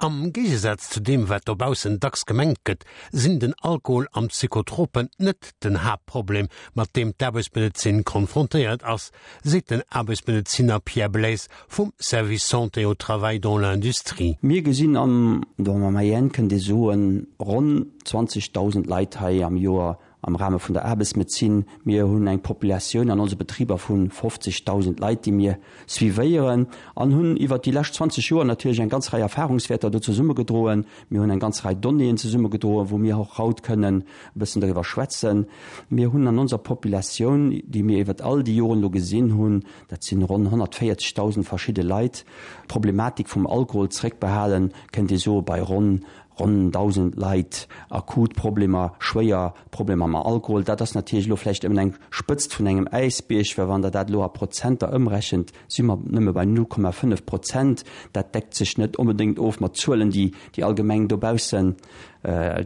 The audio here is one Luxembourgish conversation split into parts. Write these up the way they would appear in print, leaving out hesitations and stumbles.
Am Géigesaz zu deem, wat dobaussen dacks gemengt gëtt, sinn den Alkohol an d'Psychotropen net den Haaptproblem, mat deem d'Aarbechtsmedezin konfrontéiert ass, seet den Aarbechtsmedezinner Pierre Blaise vum Service Santé au travail dans l'industrie. Mir gesinn an der Moyenne, kënnt ee soen, ronn 20.000 Leit hei am Joer Am Rahme vun der Aarbechtsmedezin, mir hunn eng Populatioun an onse Betriber vu 50.000 Leit, déi mir suivéieren an hunn iwwert déi lescht 20 Joer natierlech eng ganz Rei Erfahrungswäerter do zesummegedroen. Mir hunn eng ganz Rei Donnéeën zesummegedroen, wou mir och haut kënnen e bëssen doriwwer schwätzen. Mir hunn an onser Populatioun, déi mir iwwert all déi Joren elo gesinn hunn, dat sinn ronn 140.000 verschidde Leit, d'Problematik vum Alkohol zréckbehalen, kënnt ee soe bei ronn Ronn 1.000 Leit, akut Problemer, schwéier Problemer mam Alkohol. Dat ass natierlech elo vläicht ëmmen eng Spëtzt vun engem Äisbierg, well wann Der dat elo a Prozenter ëmrechent, si mer nëmme bei 0,5 Prozent. Dat deckt sech net onbedéngt of mat Zuelen, déi déi allgemeng dobausse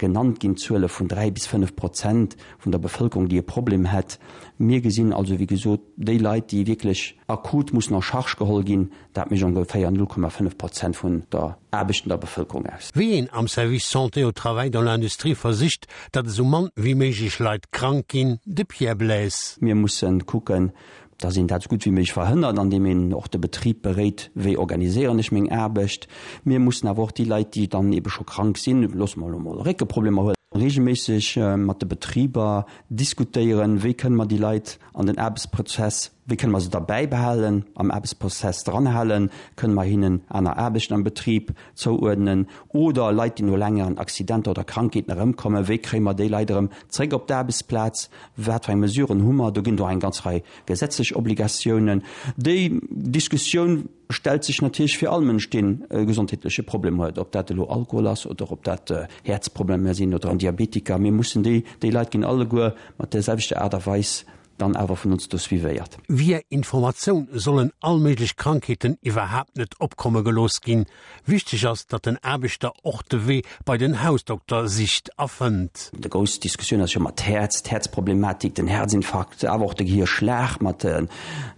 genannt ginn, Zuele vun 3 bis 5 Prozent vun der Bevëlkerung, déi e Problem hätt. Mir gesinn also, wéi gesot, déi Leit, déi wierklech akut mussen en charge geholl ginn, Dat mécht ongeféier 0,5 Prozent vun der aarbechtender Bevëlkerung aus. Wéi een am Service Santé au travail dans l'industrie versicht, datt esou mann wéi méiglech Leit krank ginn, de Pierre Blaise. Mir mussen kucken, datt een dat esou gutt wéi méiglech verhënnert, andeem een och de Betrib beréit, wéi organiséieren ech meng Aarbecht. Mir mussen awer och déi Leit, déi dann ebe scho krank sinn, loosse mer elo mol Réckeproblemer huelen, regelméisseg mat de Betriber diskutéieren, wéi kënne mer déi Leit an den Aarbechtsprozess Wéi kënne mer se derbäi behalen, am Aarbechtsprozess dranhalen? Kënne mer hinnen aner Aarbechten am Betrib zouuerdnen? Oder Leit, déi no längeren Accidenter oder Krankheeten erëmkommen, wéi kréie mer déi Leit erëm zréck op d'Aarbechtsplaz? Wat fir eng Mesuren hu mer? Do ginn et och eng ganz Rei gesetzlech Obligatiounen. Déi Diskussioun stellt sech natierlech fir all Mënsch, deen e gesondheetleche Problem huet, ob dat elo Alkohol ass oder ob dat Häerzproblemer sinn oder en Diabetiker. Mir mussen déi, déi Leit ginn alleguer mat där selwechter Aart a Weis dann awer vun ons do suivéiert. Via Informatioun sollen all méiglech Krankheeten iwwerhaapt net opkomme gelooss ginn. Wichteg ass, datt den Aarbechter och de Wee bei den Hausdokter sicht a fënnt. Déi grouss Diskussioun ass jo mat d'Häerz, d'Häerzproblematik, den Herzinfarkt, awer och de Gehierschlag mat de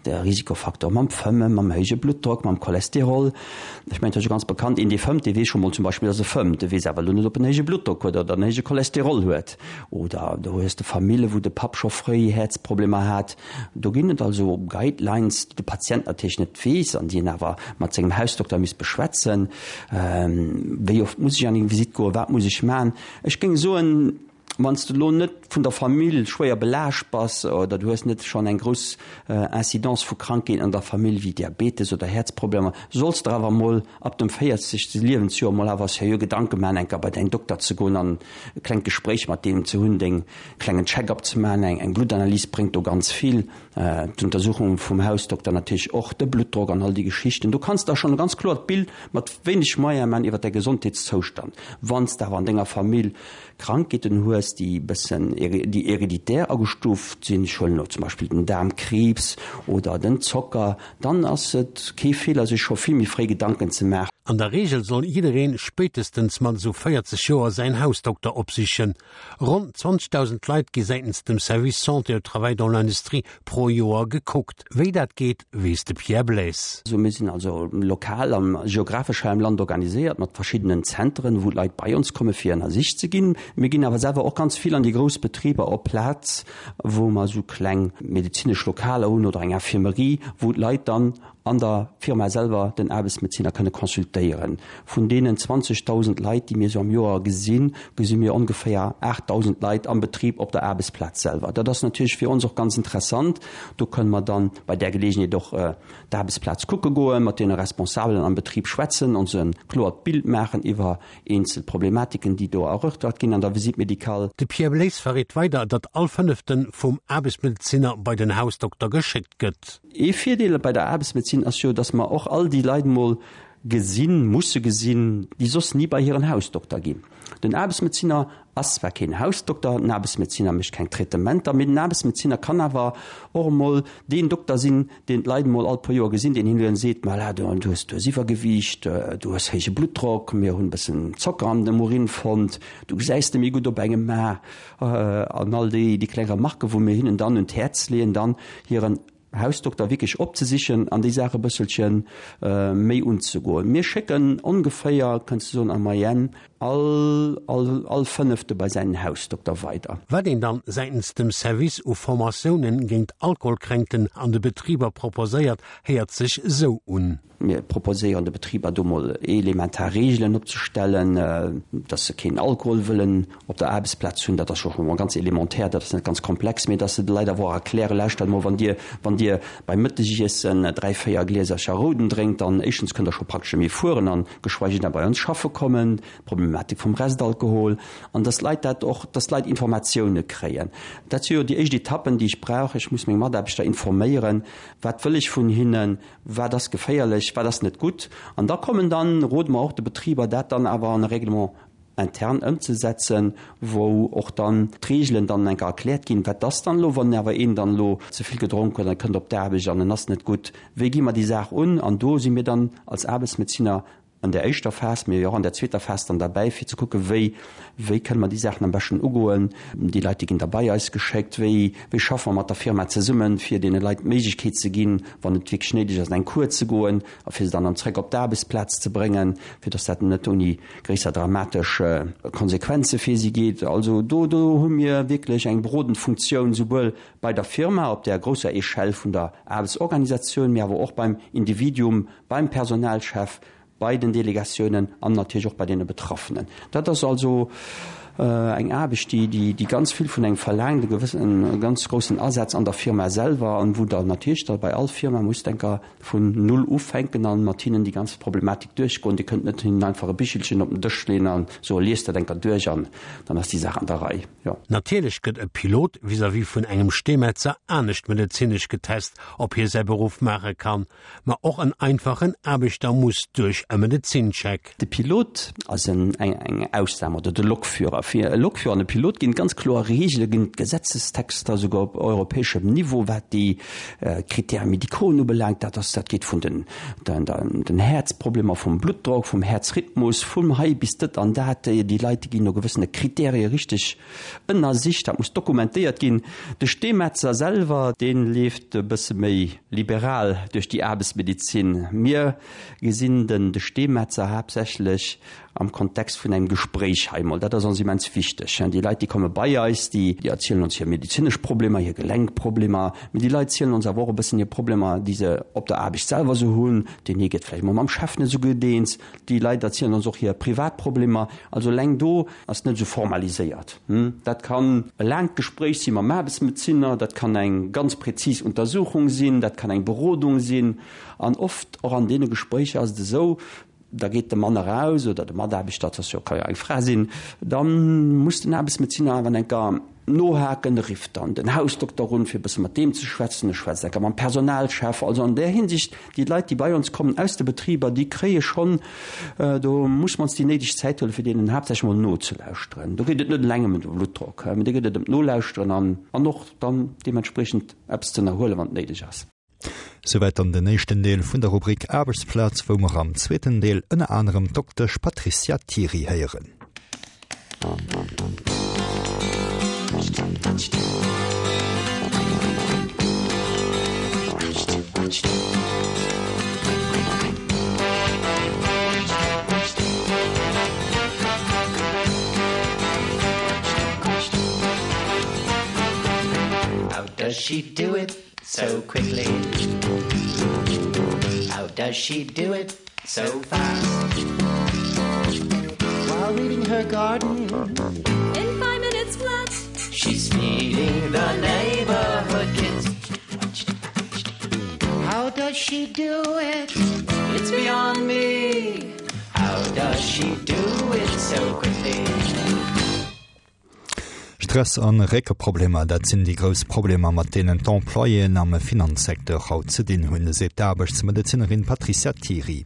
Risikofaktor mam Fëmmen, mam héije Bluttdrock, mam Cholesterol. Ech mengen, et ass jo ganz bekannt, een dee fëmmt, dee weess scho mol zum Beispill, datt e fëmmt, e weess awer elo net, ob en héije Bluttdrock huet oder en héije Cholesterol huet. Oder do hues de Famille wou de Papp scho fréi Häerzproblemer hat. Do ginn et also Guidelines, déi de Patient natierlech net weess an déi en awer mat sengem Hausdokter misst beschwätzen. Wéi oft muss ech an eng Visitt goen? Wat muss ech maachen? Ech géing soen, wann s de elo net vun der Famill schwéier belaascht bass oder du hues net schonn eng grouss Incidence vu Krankheeten an der Famill wéi Diabetes oder Häerzproblemer, solls der awer emol ab dem 40. Liewensjoer emol awer seriö Gedanke maachen, eng Kéier bei däin Dokter ze goen an e klengt Gespréich mat deem ze hunn, deng klengen Check-up ze maachen. Eng eng Bluttanalys bréngt do ganz vill, d'Untersuchung vum Hausdokter natierlech och, de Bluttdrock an all déi Geschichten. Do kanns de der schonn e ganz kloert Bild mat wéineg Moyen maachen iwwer däi Gesondheetszoustand. Wann s de awer an denger Famill Krankheeten hues, déi e bëssen déi héréditaire agestuuft sinn, ech huelen elo zum Beispill den Daarmkriibs oder den Zocker, dann ass et kee Feeler, sech scho vill méi fréi Gedanken ze maachen. An der Reegel soll jiddereen spéitestens mat esou 40 Joer säin Hausdokter opsichen. Ronn 20.000 Leit gi säitens dem Service Santé au travail dans l'industrie pro Joer gekuckt. Wéi dat geet, weess de Pierre Blaise. Mir sinn also lokal a geographesch hei am Land organiséiert mat verschiddenen Zenteren, wou d'Leit bei ons komme fir ënnersicht ze ginn. Mir ginn awer selwer och ganz vill an déi grouss Betriber op Plaz, wou mer esou kleng medezinesch Lokaler hunn oder eng Infirmerie, wou d'Leit dann an der Firma selwer den Aarbechtsmedeziner kënne consultéieren. Vun deenen 20.000 Leit, déi mir esou am Joer gesinn, gesi mir ongeféier 8.000 Leit am Betrib op der Aarbechtsplaz selwer. Dat ass natierlech fir ons och ganz interessant. Do kënne mer dann bei där Geleegenheet och d'Aarbechtsplaz kucke goen, mat deene Responsabelen am Betrib schwätzen, ons e kloert Bild maachen iwwer eenzel Problematiken, déi do erörtert ginn an der Visite médicale. De Pierre Blaise verréit weider, datt all Fënneften vum Aarbechtsmedezinner bei den Hausdokter geschéckt gëtt. Ee Virdeel bei der Aarbechtsmedezin ass jo, dass mer och all déi Leit mol gesinn, musse gesinn, déi soss ni bei hiren Hausdokter ginn. Den Aarbechtsmedezinner ass zwar keen Hausdokter, den Aarbechtsmedezinner mécht keng Traitementer, mee den Aarbechtsmedezinner kann awer och emol deen Dokter sinn, deen d'Leit emol all puer Joer gesinn, deen hinnen seet, Voilà, du hues, du hues Iwwergewiicht, du hues héije Bluttdrock, mir hunn e bëssen Zocker an dem Urin fonnt, du gesäis net méi gutt op engem A, an all déi, déi kleng Remarken, wou mir hinnen dann un d'Häerz leeën, dann hiren. Hausdokter wierklech opzesichen an déi Saach e bësselche méi unzegoen. Mir schécken ongeféier, kënnst de soen, en moyenne all, all, all Fënnefte bei säin Hausdokter weider. Wat een dann säitens dem Service u Formatiounen géint Alkoholkränkten an de Betriber proposéiert, héiert sech sou un. Mir proposéieren de Betriber do mol elementar Reegelen opzestellen, dass se keen Alkohol wëllen op der Aarbechtsplaz hunn. Dat ass scho mol ganz elementär, dat ass net ganz komplex, mee dass se de Leit awer och erklären, Lauschtert mol, wann Dir, wann Dir beim Mëttegiessen 3, 4 Gliesercher Rouden drénkt, dann éischtens kënnt Der scho praktesch net méi fueren an geschweige denn bei ons schaffe kommen, d'Problematik vum Restalkohol, an dass d'Leit dat och, dass d'Leit Informatioune kréien. Dat si jo déi éischt Etappen, déi ech brauch. Ech muss meng Mataarbechter informéieren, wat wëll ech vun hinnen, Wat ass geféierlech, wat ass net gutt? An da kommen dann, rode mer och de Betriber, dat dann awer an e Règlement interne ëmzesetzen, wou och dann d'Reegelen dann enker erkläert ginn, wat ass dann elo, wann awer een dann elo ze vill gedronk huet an e kënnt op d'Aarbecht an en ass net gutt, wéi gi mer déi Saach un? An do si mir dann als Aarbechtsmedeziner an där éischter Phas, mee och an där zweeter Phas dann derbäi, fir ze kucken, wéi, wéi kënne mer déi Saachen am beschten ugoen. Déi Leit, déi ginn da bei eis geschéckt. Wéi, wéi schaffe mer mat der Firma zesummen, fir deene Leit d'Méiglechkeet ze ginn, wann et wierklech néideg ass, an eng Kur ze goen a fir se dann erëm zréck op d'Aarbechtsplaz ze bréngen, fir dass dat net ouni gréisser dramatesch Konsequenze fir si geet. Also do, do hu mir wierklech eng berodend Funktioun, souwuel bei der Firma op där grousser Echelle vun der Aarbechtsorganisatioun, mee awer och beim Individuum, beim Personalchef, bei den Delegatiounen an natierlech och bei deene Betraffenen. Dat ass also eng Aarbecht, déi, déi ganz vill vun engem verlaangt, e gewëssen, e ganz groussen Asaz an der Firma selwer an wou Der natierlech da bei all Firma musst enker vun null ufänken a mat hinnen déi ganz Problematik duerchgoen. Dir kënnt net hinnen einfach e Bichelchen op den Dësch leeën a soe liest dat enker duerch an dann ass déi Saach an der Rei. Jo. Natierlech gëtt e Pilot vis-à-vis vun engem Steemetzer anescht medezinesch getest, ob hie säi Beruff maache kann. Ma och en einfachen Aarbechter muss duerch e Medezincheck. De Pilot ass en eng Ausnam, oder de Lokführer. Fir e Lokführer an e Pilot ginn et ganz kloer Reegele, ginn et Gesetzestexter, souguer op europäeschem Niveau, wat déi Critères médicaux ubelaangt. Dat ass, dat geet vun den den Häerzproblemer, vum Bluttdrock, vum Häerzrhythmus, vum hei bis dët an dat. Déi Leit, déi ginn no gewëssene Kriterie richteg Ënnersicht, dat muss dokumentéiert ginn. De Steemetzer selwer, dee leeft e bësse méi liberal duerch déi Aarbechtsmedezin. Mir gesinn den de Steemetzer haaptsächlech am Kontext vun engem Gespréich hei emol. Dat ass ons immens wichteg. Déi Leit, déi komme bei eis, déi erzielen ons hir medezinesch Problemer, hir Gelenkproblemer, mee déi Leit zielen ons awer och e bëssen hir Problemer, déi se op der Aarbecht selwer esou hunn. Deen ee gëtt vläicht emol mam Chef net esou gutt eens. Déi Leit erzielen ons och hir privat Problemer. Also eleng do ass net esou formaliséiert. Dat kann e laangt Gespréich si mam Aarbechtsmedeziner, dat kann eng ganz präzis Untersuchung sinn, dat kann eng Berodung sinn. An oft, och an deene Gespréicher ass et esou, da geet de Mann eraus oder de Mataarbechter, dat ass jo, ka jo eng Fra sinn, da muss den Aarbechtsmedeziner awer enker nohaken, e rifft dann den Hausdokter un, fir e bësse mat deem ze schwätzen, e schwätzt enker mam Personalchef. Also an där Hinsicht, déi Leit, déi bei ons kommen aus de Betriber, déi kréie schonn, do muss mer ons déi néideg Zäit huelen, fir deenen haaptsächlech mol nozelauschteren. Do geet et net eleng ëm de Bluttdrock, mä do geet et ëm d'Nolauschteren an an och dann deementspriechend eppes ze ënnerhuelen, wann et néideg ass. Souwäit dann den éischten Deel vun der Rubrik Aarbechtsplaz, wou mer am zweeten Deel ënner anerem d'Doktesch Patricia Thiry héieren. How does she do it so quickly? How does she do it so fast? While weeding her garden in five minutes flat, she's feeding the neighborhood kids. How does she do it? It's beyond me. How does she do it so quickly? Stress an Réckeproblemer, dat sinn déi grouss Problemer, mat deenen d'Employéen am Finanzsecteur haut ze dinn hunn, seet d'Aarbechtsmedezinerin Patricia Thiry.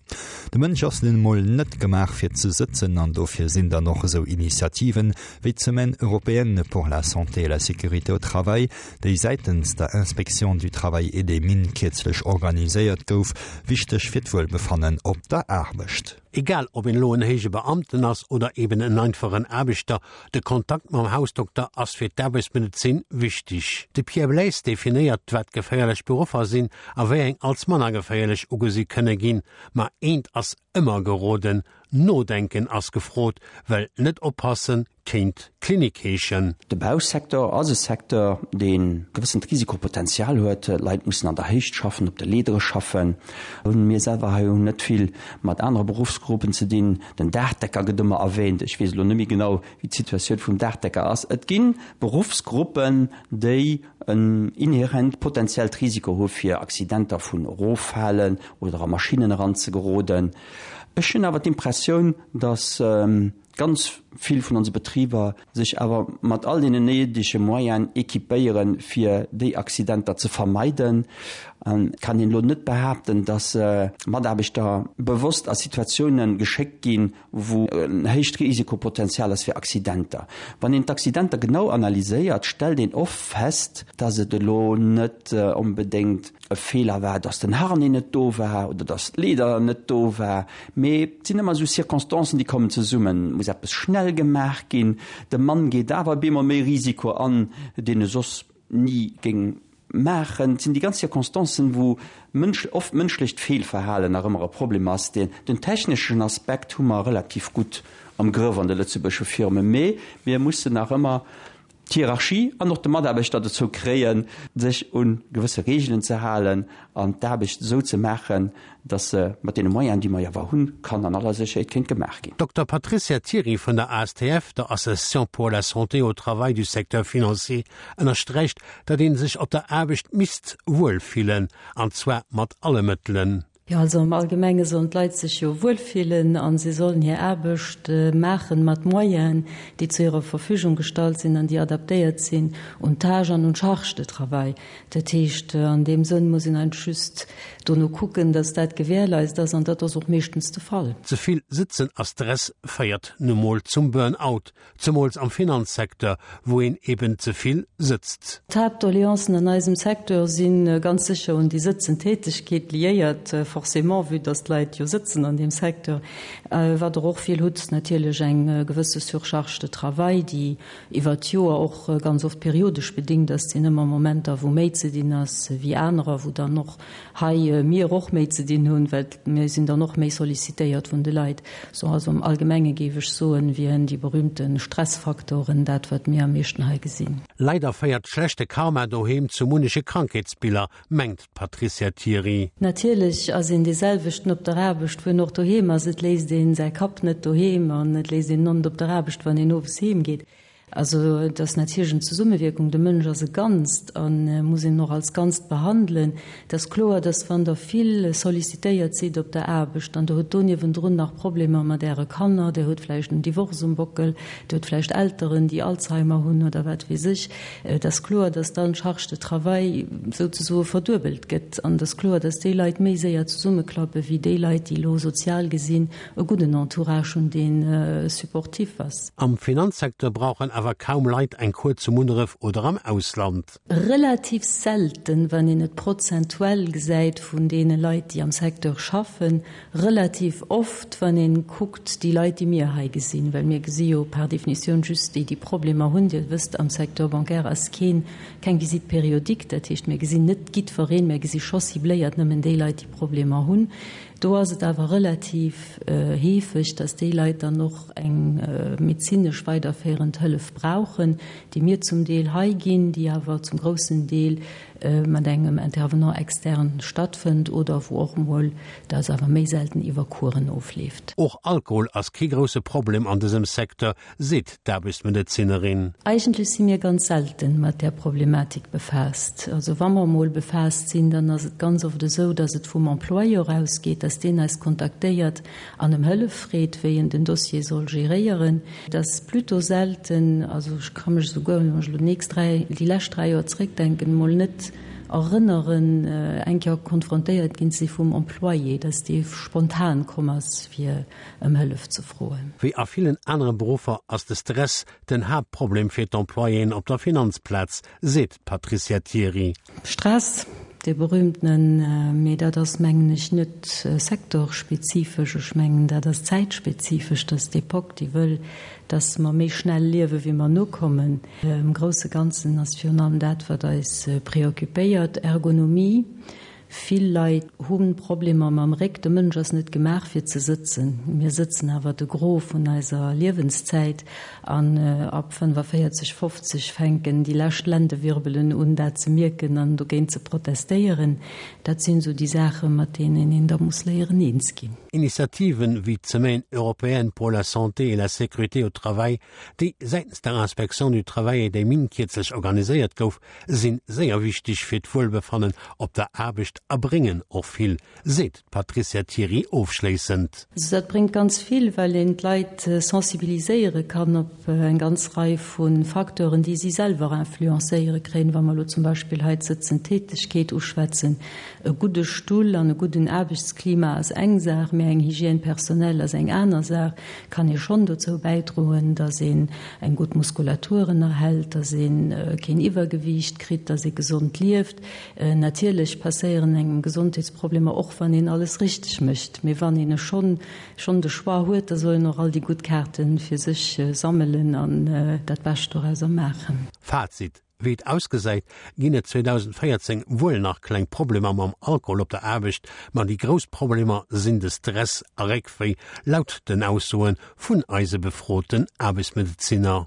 De Mënsch ass nun emol net gemaach fir ze sëtzen an dofir sinn dann och esou Initiativen wéi d'Semaine européenne pour la santé et la sécurité au travail, déi säitens der Inspection du travail et des mines kierzlech organiséiert gouf, wichteg fir d'Wuelbefannen op der Aarbecht. Egal ob een elo en héije Beamten ass oder eben en einfachen Aarbechter, de Kontakt mam Hausdokter ass fir d'Aarbechtsmedezin wichteg. De Pierre Blaise definéiert, wat geféierlech Beruffer sinn a wéi eng als manner geféierlech ugesi kënne ginn. Ma eent ass ëmmer geroden, Nodenken ass gefrot, well net oppassen kéint Klinik heeschen. De Bausecteur ass e Secteur, dee gewëssent Risikopotenzial huet. D'Leit mussen an der Héicht schaffen, op de Leedere schaffen. Mir selwer hei hunn net vill mat anere Beruffsgruppen ze dinn. Den Daachdecker gëtt ëmmer erwähnt. Ech weess elo net méi genau, wéi d'Situatioun vum Daachdecker ass. Et gi Beruffsgruppen, déi en inhärent potenziellt Risiko hu fir Accidenter vun Eroffalen oder a Maschinnen eranzegeroden. Ech hunn awer d'Impressioun, datt ganz vill vun onse Betriber sech awer mat all deenen néidege Moyenen équipéieren, fir déi Accidenter ze vermeiden. Et kann een elo net behaapten, datt Mataarbechter bewosst a Situatiounen geschéckt ginn, wou en héicht Risikopotenzial ass fir Accidenter. Wann een d'Accidenter genau analyséiert, stellt een oft fest, dass et elo net onbedéngt e Feeler war, dass den Harnais net do war oder dass d'Leeder net do war, mee et sinn ëmmer esou Circonstancen, déi kommen zesummen. Et muss eppes schnell gemaach ginn, de Mann geet awer op eemol méi Risiko an, deen e soss ni géing maachen. Et sinn déi ganz Circonstancen, wou mënsch, oft mënschlecht Feelverhalen nach ëmmer e Problem ass. Den, den techneschen Aspekt hu mer relativ gutt am Grëff an de lëtzebuergesche Firmen, mee mir mussen nach ëmmer d'Hierarchie an och de Mataarbechter dozou kréien, sech u gewësse Reegelen ze halen an d'Aarbecht esou ze maachen, dass se mat deene Moyenen, déi mer jo awer hunn, kann an aller Sécherheet kéint gemaach ginn. D'Dokter Patricia Thiry vun der ASTF, der Association pour la santé au travail du secteur financier, ënnersträicht, datt ee sech op der Aarbecht misst wuel fillen, an zwar mat alle Mëttelen. Jo, also am Allgemenge sollen d'Leit sech jo wuel fillen a si sollen hir Aarbecht maachen mat Moyenen, déi zu hirer Verfügung gestallt sinn an déi adaptéiert sinn un d'Tâche an un d'Charge de travail. Dat heescht, an deem Sënn muss een eigentlech just dono kucken, dass dat gewährleist ass, an dat ass och meeschtens de Fall. Ze vill Sëtzen a Stress féiert nu mol zum Burn-out, zemools am Finanzsecteur, wou een eben ze vill sëtzt. D'Haaptdoleancen an eisem Secteur si ganz sécher un déi sëtzend Tätegkeet liéiert, forcément, vue dass d'Leit jo sëtzen an deem Secteur. Wat Der och vill hutt, natierlech eng gewësse Surcharge de travail, déi iwwert d'Joer och ganz oft periodesch bedingt ass. Et sinn ëmmer Momenter, wou méi ze dinn ass wéi anerer, wou dann och hei mir och méi ze dinn hunn, well mir sinn dann och méi sollicitéiert vun de Leit. Sou also am Allgemenge géif ech soen, wieren déi berühmte Stressfaktoren dat, wat mir am meeschten hei gesinn. Leider féiert schlechte Karma doheem zu munneche Krankheetsbiller, mengt d'Patricia Thiry. Natierlech ass een dee selwechten op der Aarbecht, wou een och doheem ass. Et léisst een säi Kapp net doheem an et léisst een en och net op der Aarbecht, wann een owes heem geet. Also et ass natierlech eng Zesummewierkung. De Mënsch ass e Ganzt a muss een och als Ganzt behandelen. Et ass kloer, dass wann Der vill sollicitéiert sidd op der Aarbecht an Der hutt do niewendrun nach Problemer mat Äre Kanner, Der hutt vläicht en Divorce um Bockel, Der hutt vläicht Elteren, déi Alzheimer hunn oder wat weess ech, Et ass kloer, dass dann d'Charge de travail souzesoe verduebelt gëtt. An et ass kloer, dass déi Leit méi séier zesummeklappe wéi déi Leit, déi elo sozial gesinn e gudden Entourage hunn, dee supportif ass. Am Finanzsecteur brauchen awer kaum Leit eng Kur zu Munneref oder am Ausland. Relativ selten, wann een et prozentuell gesäit vun deene Leit, déi am Secteur schaffen, Relativ oft, wann een kuckt, déi Leit, déi mir hei gesinn, well mir gesi jo par Definitioun just déi, déi Problemer hunn. Dir wësst, am Secteur bancaire ass keen, keng Visite périodique, dat heescht, mir gesinn net giddwereen, mir gesi scho cibléiert nëmmen déi Leit, déi Problemer hunn. Do ass et awer relativ heefeg, dass déi Leit dann och eng medezinesch weiderféierend Hëllef brauchen, déi mir zum Deel hei ginn, déi awer zum groussen Deel mat engem Intervenant externe stattfënnt oder wou och emol, dat ass awer méi selten, iwwer Coursen ofleeft. Och Alkohol ass kee grousse Problem an dësem Secteur, seet d'Aarbechtsmedezinerin. Eigentlech si mir ganz selten mat där Problematik befaasst. Also wa mer emol befaasst sinn, dann ass et ganz oft esou, dass et vum Employeur ausgeet, dass deen eis kontaktéiert an ëm Hëllef freet, wéi en den Dossier soll geréieren. Et ass plutôt selten, also ech ka mech esouguer, wann ech elo déi nächst 3, déi lescht 3 Joer zréckdenken, emol net erënneren, eng Kéier konfrontéiert ginn ze si vum Employé, dass dee spontan komm ass, fir ëm Hëllef ze froen. Wéi a villen anere Beruffer ass de Stress den Haaptproblem fir d'Employéen op der Finanzplaz, seet d'Patricia Thiry. Stress? dee berühmtenen, mee dat ass, mengen ech, net sektorspezifesch. Ech mengen, dat ass zäitspezifesch, dass d'Epoque, déi wëll, dass mer méi schnell liewe wéi mer nokommen. Am grousse Ganzen ass virun allem dat, wat eis preoccupéiert, Ergonomie. Vill Leit hu Problemer mam Réck. De Mënsch ass net gemaach fir ze sëtzen. Mir sëtzen awer de Gros vun eiser Liewenszäit an ab 45, 50 fänken déi lescht Lendewirbelen un dat ze mierken an dogéint ze protestéieren. Dat sinn esou déi Saachen, mat deenen een da muss léieren eens ginn. Initiativen wéi d'Semaine européenne pour la santé et la sécurité au travail, déi säitens der Inspection du Travail et des Mines kierzlech organiséiert gouf, sinn séier wichteg fir d'Wuelbefannen op der Aarbecht a bréngen och vill, seet d'Patricia Thiry ofschléissend. Dat bréngt ganz vill, well een d'Leit sensibiliséiere kann op eng ganz Rei vu Facteuren, déi si selwer influencéiere kréien. Wa mer elo zum Beispill hei d'sëtzend Tätegkeet uschwätzen, e gudde Stull an e gudden Aarbechtsklima ass eng Saach, mä eng Hygiène personnelle ass eng aner Saach. Kann ee schonn dozou bäidroen, datt een eng gutt Muskulatur ënnerhält, datt ee keen Iwwergewiicht kritt, datt ee gesond lieft. Natierlech passéieren engem Gesondheetsproblemer och wann een alles richteg mécht, mee wann een e schonn schonn de Choix huet, da soll een och all déi gutt Kaarte fir sech sammelen an dat Bescht dorauser maachen. Fazit, Wéi et ausgesäit, ginn et 2014 wuel nach kleng Problemer mam Alkohol op der Aarbecht, ma déi grouss Problemer sinn de Stress a Réckwéi, laut den Aussoe vun eise befroten Aarbechtsmedezinner.